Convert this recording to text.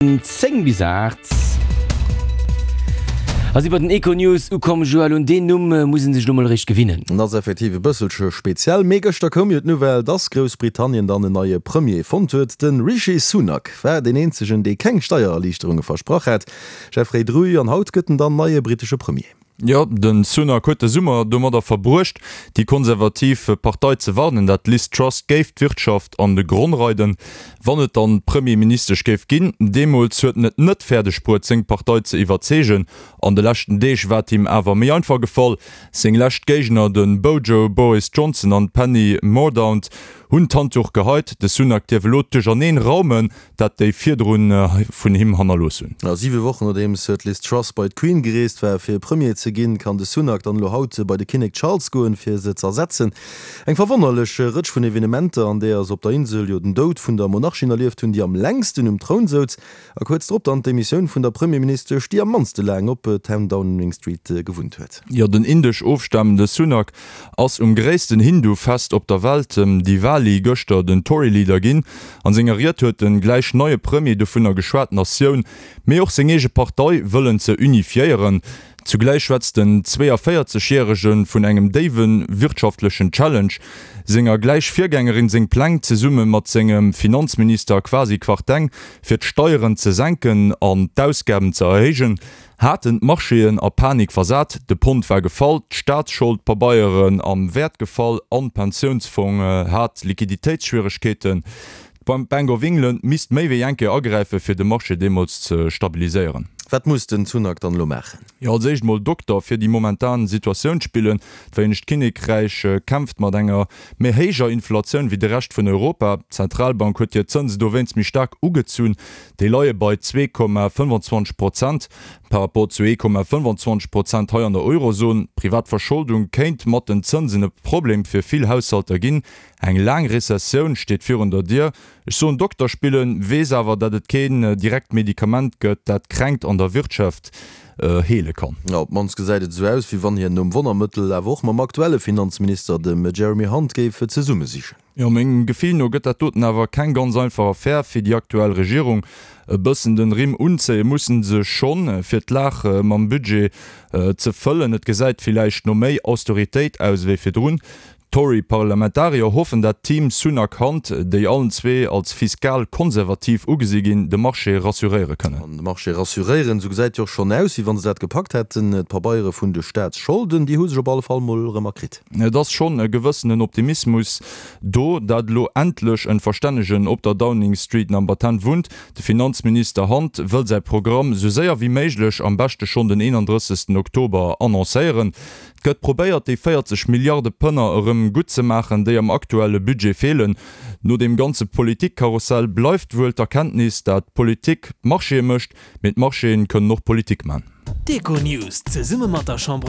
10 bis 8 a si bei den Econews ukomm. Joël, un deen Numm muss een sech elo mol eréischt gewinnen. En ass effektiv e bësselche speziell, mee gëschter koum jo d'Nouvelle, dass Groussbritannien dann en neie Premier fonnt huet. De Rishi Sunak war deen eenzegen, dee keng Steiererliichterunge versprach hat. Jeffrey Druy, An haut gëtt en dann neie brittesche Premier. Jo, de Sunak huet de Summer domadder verbruecht, déi konservativ Partei ze warnen, dat d'Liz Truss géif d'Wirtschaft an de Gronn reiden, wann et dann Premierministesch géif ginn. Deemools huet en et net fäerdeg bruet, seng Partei ze iwwerzeegen. An de leschten Deeg war et him awer méi einfach gefall. Seng lescht Géigner, de Bojo Boris Johnson an d'Penny Mordaunt, hunn d'Handduch geheit. De Sunak dierf elo d'Duercherneen raumen, dat déi virdrun vun him hannerlooss hunn. A siwe Wochen nodeems d'Liz Truss bei d'Queen gereest war fir Premier ze ginn, kann de Sunak dann elo haut bei de Kinnek Charles goen, fir se z'ersetzen. Eng verwonnerlech Rëtsch vun Evenementer, an deeër se op der Insel jo den Doud vun der Monarchin erlieft hunn, déi am längsten um Troun souz, a kuerz drop dann d'Demissioun vun der Premierministesch, déi am mannste laang op 10 Downing Street gewunnt huet. Jo, den indesch ofstamende Sunak ass um gréissten Hindu-Fest op der Welt, dem Diwali, gëschter den Tory-Leader ginn. An senger Ried huet den gläich neie Premier dovunner geschwat, d'Natioun, mee och seng eege Partei wëllen ze unifiéieren. Zugläich schwätzt den 42 Järege vun engem déiwe wirtschaftlechen Challenge. Senger gläich Virgängerin seng Pläng, zesumme mat sengem Finanzminister Kwasi Kwarteng, fir d'Steieren ze senken an d'Ausgaben ze erhéijen, haten d'Marchéen a Panik versat, de Pond war gefall, d'Staatsscholdpabeieren am Wäert gefall an d'Pensiounsfong hat Liquiditéitsschwieregkeeten. D'Bank of England misst méi wéi eng Kéier agräifen, fir de Marché deemools ze stabiliséieren. Wat muss den Sunak dann elo maachen? Jo, als éischt mol Dokter fir déi momentan Situatioun spillen. D'Vereenegt Kinnekräich kämpft mat enger méi héijer Inflatioun wéi de Rescht vun Europa. D'Zentralbank huet hir Zënse dowéinst méi staark ugezunn. Déi leie bei 2,25 Prozent par rapport zu 1,25 Prozent hei an der Eurozon. D'privat Verscholdung kéint mat den Zënsen e Problem fir vill Haushalter ginn. Eng laang Rezessioun steet virun der Dier. Ech soen Dokter spillen, weess awer, dat et keen direkt Medikament gëtt, dat d'Kränkt an der Wirtschaft heele kann. Op d'mannst gesäit et esou aus, wéi wann hien nom Wonnermëttel awer och mam aktuelle Finanzminister, dem Jeremy Hunt, géif zesumme sichen. Jo, mengem Gefill no gëtt dat doten awer keng ganz einfach Affär fir déi aktuell Regierung. E bëssen den Rimm unzéie mussen se schonn, fir d'Laach mam Budget ze fëllen. Et gesäit villäicht no méi Austeritéit aus ewéi virdrun. D'Tory-Parlamentarier hoffen, dat d'Team Sunak-Hunt, déi allen zwee als fiskal-konservativ ugesi ginn, de Marché rassuréiere kënnen. An de Marché rassuréieren, esou gesäit jo och schonn aus, wéi wa se dat gepackt hätten. D'Pabeiere vun de Staatsscholden, déi hu sech op alle Fall mol erëm erkritt. Et ass schonn e gewëssenen Optimismus do, dat elo endlech en Verstännegen op der Downing Street Number 10 wunnt. De Finanzminister Hunt wëll säi Programm sou séier wéi méiglech, am beschte schonn den 31 Oktober, annoncéieren. Et gëtt probéiert, déi 40 Milliarde Pënner erëm gutt ze maachen, déi am aktuelle Budget feelen. No deem ganze Politikkarussell bleift wuel d'Erkenntnis, dat d'Politik d'Marchéë mécht, mee d'Marchéen kënnen och Politik man. D'Econews zesumme mat der Chambre.